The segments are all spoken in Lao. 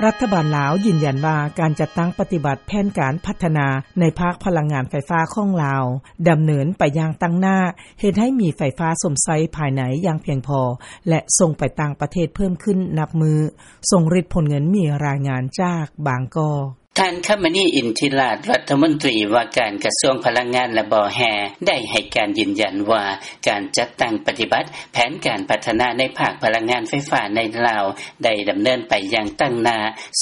ລັດຖະບານລາວຢືນຢັນວ່າ ການຈັດຕັ້ງປະຕິບັດແຜນການພັດທະນາ ໃນພາກພະລັງງານໄຟຟ້າຂອງລາວ ດຳເນີນໄປຢ່າງຕັ້ງໜ້າ ເຮັດໃຫ້ມີໄຟຟ້າຊົມໃຊ້ພາຍໃນຢ່າງພຽງພໍ ແລະ ສົ່ງໄປຕ່າງປະເທດເພີ່ມຂຶ້ນນັບມື້. ຊົງລິດ ພົນເງິນ ມີລາຍງານຈາກບາງກອກ. ທ່ານ ຄຳມະນີ ອິນທິລາດ ລັດຖະມົນຕີວ່າການກະຊວງພະລັງງານ ແລະ ບໍ່ແຮ່ ໄດ້ໃຫ້ການຢືນຢັນວ່າ ການຈັດຕັ້ງປະຕິບັດແຜນການພັດທະນາໃນພາກພະລັງງານໄຟຟ້າໃນລາວ ໄດ້ດຳເນີນໄປຢ່າງຕັ້ງໜ້າ,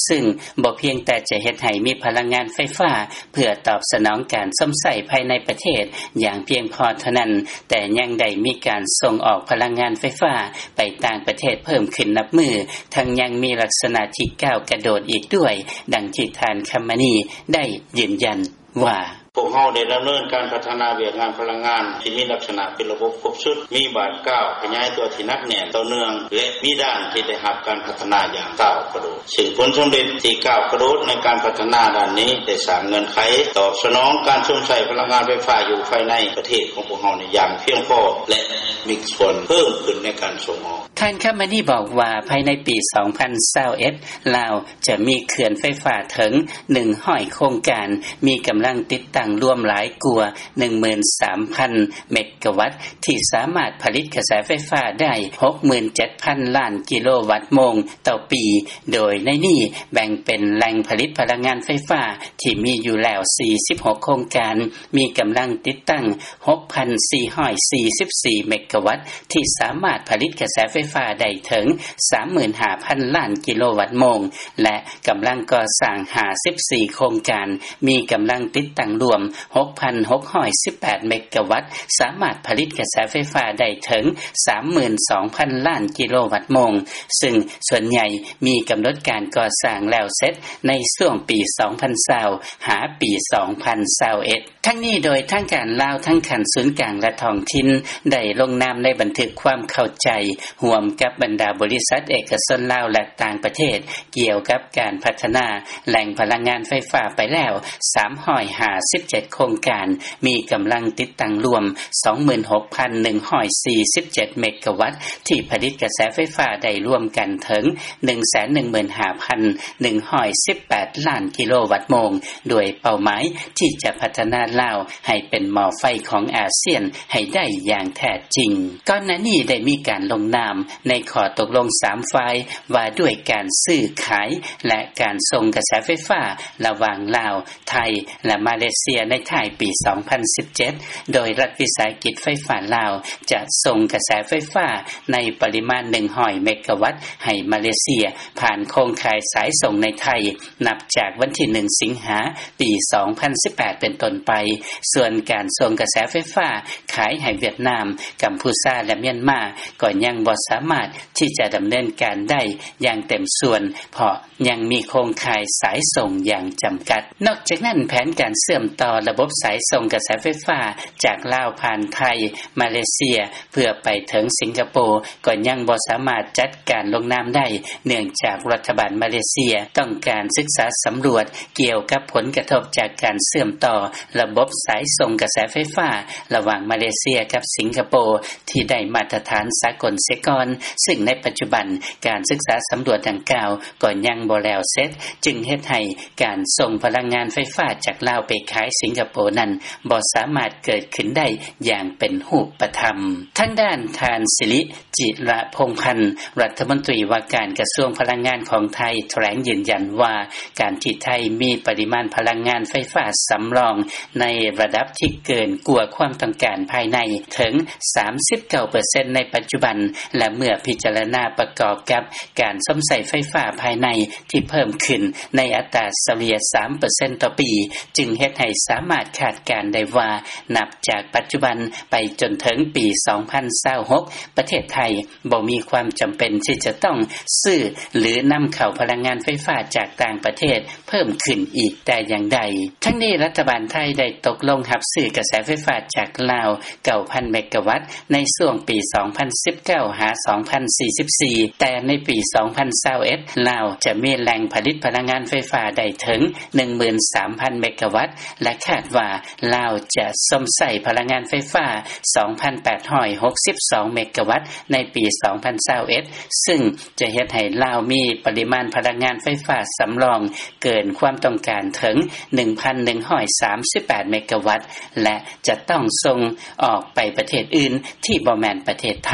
ຊຶ່ງບໍ່ພຽງແຕ່ຈະເຮັດໃຫ້ມີພະລັງງານໄຟຟ້າ ເພື່ອຕອບສະໜອງການຊົມໃຊ້ພາຍໃນປະເທດຢ່າງພຽງພໍເທົ່ານັ້ນ, ແຕ່ຍັງໄດ້ມີການສົ່ງອອກພະລັງງານໄຟຟ້າໄປຕ່າງປະເທດເພີ່ມຂຶ້ນນັບມື້, ທັງຍັງມີລັກສະນະທີ່ກ້າວກະໂດດອີກດ້ວຍ, ດັ່ງທີ່ທ່ານ ຄຳມະນີ ໄດ້ຢືນຢັນວ່າ: ພວກເຮົາໄດ້ດຳເນີນການພັດທະນາວຽກງານພະລັງງານທີ່ມີລັກສະນະເປັນລະບົບຄົບຊຸດ, ມີບາດກ້າວຂະຫຍາຍຕົວທີ່ໜັກແໜ້ນ, ຕໍ່ເນື່ອງ ແລະ ມີດ້ານທີ່ໄດ້ຮັບການພັດທະນາຢ່າງກ້າວກະໂດດ, ຊຶ່ງຜົນສຳເລັດທີ່ກ້າວກະໂດດໃນການພັດທະນາດ້ານນີ້ ໄດ້ສ້າງເງື່ອນໄຂຕອບສະໜອງການຊົມໃຊ້ພະລັງງານໄຟຟ້າຢູ່ພາຍໃນປະເທດຂອງພວກເຮົານີ້ຢ່າງພຽງພໍ ແລະ ມີສ່ວນເພີ່ມຂຶ້ນໃນການສົ່ງອອກ. ທ່ານ ຄຳມະນີ ບອກວ່າ ພາຍໃນປີສອງພັນຊາວເອັດ ລາວຈະມີເຂື່ອນໄຟຟ້າເຖິງໜຶ່ງຮ້ອຍໂຄງການ, ມີກຳລັງຕິດຕັ້ງລວມຫຼາຍກວ່າໜຶ່ງໝື່ນສາມພັນເມກະວັດ ທີ່ສາມາດຜະລິດກະແສໄຟຟ້າໄດ້ຫົກໝື່ນເຈັດພັນລ້ານກິໂລວັດໂມງຕໍ່ປີ, ໂດຍໃນນີ້ແບ່ງເປັນແຫຼ່ງຜະລິດພະລັງງານໄຟຟ້າທີ່ມີຢູ່ແລ້ວສີ່ສິບຫົກໂຄງການ, ມີກຳລັງຕິດຕັ້ງຫົກພັນສີ່ຮ້ອຍສີ່ສິບສີ່ເມກະວັດ ທີ່ສາມາດຜະລິດກະແສໄຟຟ້າໄດ້ເຖິງສາມໝື່ນຫ້າພັນລ້ານກິໂລວັດໂມງ ແລະ ກຳລັງກໍ່ສ້າງຫ້າສິບສີ່ໂຄງການ, ມີກຳລັງຕິດຕັ້ງລວມຫົກພັນຫົກຮ້ອຍສິບແປດເມກະວັດ, ສາມາດຜະລິດກະແສໄຟຟ້າໄດ້ເຖິງສາມໝື່ນສອງພັນລ້ານກິໂລວັດໂມງ, ຊຶ່ງສ່ວນໃຫຍ່ມີກຳນົດການກໍ່ສ້າງແລ້ວເສັດໃນຊ່ວງປີສອງພັນຊາວ ຫາປີສອງພັນຊາວເອັດ. ທັງນີ້ ໂດຍທາງການລາວທັງຂັ້ນສູນກາງ ແລະ ທ້ອງຖິ່ນ ໄດ້ລົງນາມໃນບັນທຶກຄວາມເຂົ້າໃຈຮ່ວມກັບບັນດາບໍລິສັດເອກະຊົນລາວ ແລະ ຕ່າງປະເທດ ກ່ຽວກັບການພັດທະນາແຫຼ່ງພະລັງງານໄຟຟ້າໄປແລ້ວສາມຮ້ອຍຫ້າສິບເຈັດໂຄງການ, ມີກຳລັງຕິດຕັ້ງລວມສອງໝື່ນຫົກພັນໜຶ່ງຮ້ອຍສີ່ສິບເຈັດເມກະວັດ ທີ່ຜະລິດກະແສໄຟຟ້າໄດ້ລວມກັນເຖິງໜຶ່ງແສນໜຶ່ງໝື່ນຫ້າພັນໜຶ່ງຮ້ອຍສິບແປດລ້ານກິໂລວັດໂມງ, ດ້ວຍເປົ້າໝາຍທີ່ຈະພັດທະນາລາວໃຫ້ເປັນໝໍ້ໄຟຂອງອາຊຽນໃຫ້ໄດ້ຢ່າງແທ້ຈິງ. ກ່ອນໜ້ານີ້ໄດ້ມີການລົງນາມໃນຂໍ້ຕົກລົງສາມຝ່າຍ ວ່າດ້ວຍການຊື້ຂາຍ ແລະ ການສົ່ງກະແສໄຟຟ້າລະຫວ່າງລາວ, ໄທ ແລະ ມາເລເຊຍ ໃນທ້າຍປີສອງພັນສິບເຈັດ ໂດຍລັດວິສາຫະກິດໄຟຟ້າລາວຈະສົ່ງກະແສໄຟຟ້າໃນປະລິມານໜຶ່ງຮ້ອຍເມກະວັດໃຫ້ມາເລເຊຍ ຜ່ານໂຄງຂ່າຍສາຍສົ່ງໃນໄທ ນັບຈາກວັນທີໜຶ່ງ ສິງຫາ ປີສອງພັນສິບແປດ ເປັນຕົ້ນໄປ. ສ່ວນການສົ່ງກະແສໄຟຟ້າຂາຍໃຫ້ຫວຽດນາມ, ກຳພູຊາ ແລະ ມຽນມາ ກໍຍັງບໍ່ສາມາດທີ່ຈະດຳເນີນການໄດ້ຢ່າງເຕັມສ່ວນ ເພາະ ຍັງມີໂຄງຂ່າຍສາຍສົ່ງຢ່າງຈຳກັດ. ນອກຈາກນັ້ນ, ແຜນການເຊື່ອມຕໍ່ລະບົບສາຍສົ່ງກະແສໄຟຟ້າຈາກລາວຜ່ານໄທ, ມາເລເຊຍ ເພື່ອໄປເຖິງສິງກະໂປ ກໍຍັງບໍ່ສາມາດຈັດການລົງນາມໄດ້, ເນື່ອງຈາກລັດຖະບານມາເລເຊຍຕ້ອງການສຶກສາສຳຫຼວດກ່ຽວກັບຜົນກະທົບຈາກການເຊື່ອມຕໍ່ລະບົບສາຍສົ່ງກະແສໄຟຟ້າລະຫວ່າງມາເລເຊຍກັບສິງກະໂປ ທີ່ໄດ້ມາດຕະຖານສາກົນເສຍກ່ອນ, ຊຶ່ງໃນປັດຈຸບັນການສຶກສາສຳຫຼວດດັ່ງກ່າວກໍຍັງບໍ່ແລ້ວເສັດ, ຈຶ່ງເຮັດໃຫ້ການສົ່ງພະລັງງານໄຟຟ້າຈາກລາວໄປຂາຍສິງກະໂປນັ້ນ ບໍ່ສາມາດເກີດຂຶ້ນໄດ້ຢ່າງເປັນຮູບປະທຳ. ທາງດ້ານທ່ານ ສິລິ ຈິລະພົງພັນ ລັດຖະມົນຕີວ່າການກະຊວງພະລັງງານຂອງໄທ ຖະແຫຼງຢືນຢັນວ່າ ການທີ່ໄທມີປະລິມານພະລັງງານໄຟຟ້າສຳລອງໃນລະດັບທີ່ເກີນກວ່າຄວາມຕ້ອງການພາຍໃນເຖິງສາມສິບເກົ້າເປີເຊັນໃນປັດຈຸບັນ ແລະ ເມື່ອພິຈາລະນາປະກອບກັບການຊົມໃຊ້ໄຟຟ້າພາຍໃນທີ່ເພີ່ມຂຶ້ນໃນອັດຕາສະເລ່ຍສາມເປີເຊັນຕໍ່ປີ ຈຶ່ງເຮັດໃຫ້ສາມາດຄາດການໄດ້ວ່າ ນັບຈາກປັດຈຸບັນໄປຈົນເຖິງປີສອງພັນຊາວຫົກ ປະເທດໄທ ບໍ່ມີຄວາມຈຳເປັນທີ່ຈະຕ້ອງຊື້ ຫຼື ນຳເຂົ້າພະລັງງານໄຟຟ້າຈາກຕ່າງປະເທດເພີ່ມຂຶ້ນອີກແຕ່ຢ່າງໃດ. ທັງນີ້ ລັດຖະບານໄທໄດ້ຕົກລົງຮັບຊື້ກະແສໄຟຟ້າຈາກລາວເກົ້າພັນເມກະວັດ ໃນຊ່ວງປີສອງພັນສິບເກົ້າ ຫາ ສອງພັນສີ່ສິບສີ່ ແຕ່ໃນປີ ສອງພັນຊາວເອັດ ລາວຈະມີແຫຼ່ງຜະລິດພະລັງງານໄຟຟ້າໄດ້ເຖິງ ໜຶ່ງໝື່ນສາມພັນ ເມກາວັດ ແລະ ຄາດວ່າລາວຈະຊົມໃຊ້ພະລັງງານໄຟຟ້າ ສອງພັນແປດຮ້ອຍຫົກສິບສອງ ເມກາວັດ ໃນປີ ສອງພັນຊາວເອັດ ຊຶ່ງຈະເຮັດໃຫ້ລາວມີປະລິມານພະລັງງານໄຟຟ້າສຳລອງເກີນຄວາມຕ້ອງການເຖິງ ໜຶ່ງພັນໜຶ່ງຮ້ອຍສາມສິບແປດ ເມກາວັດ ແລະ ຈະຕ້ອງສົ່ງອອກໄປປະເທດອື່ນທີ່ບໍ່ແມ່ນປະເທດໄທ.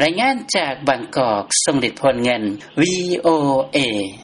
ລາຍງານຈາກບາງກອກ ຊົງລິດ ໂພນເງິນ ວີໂອເອ.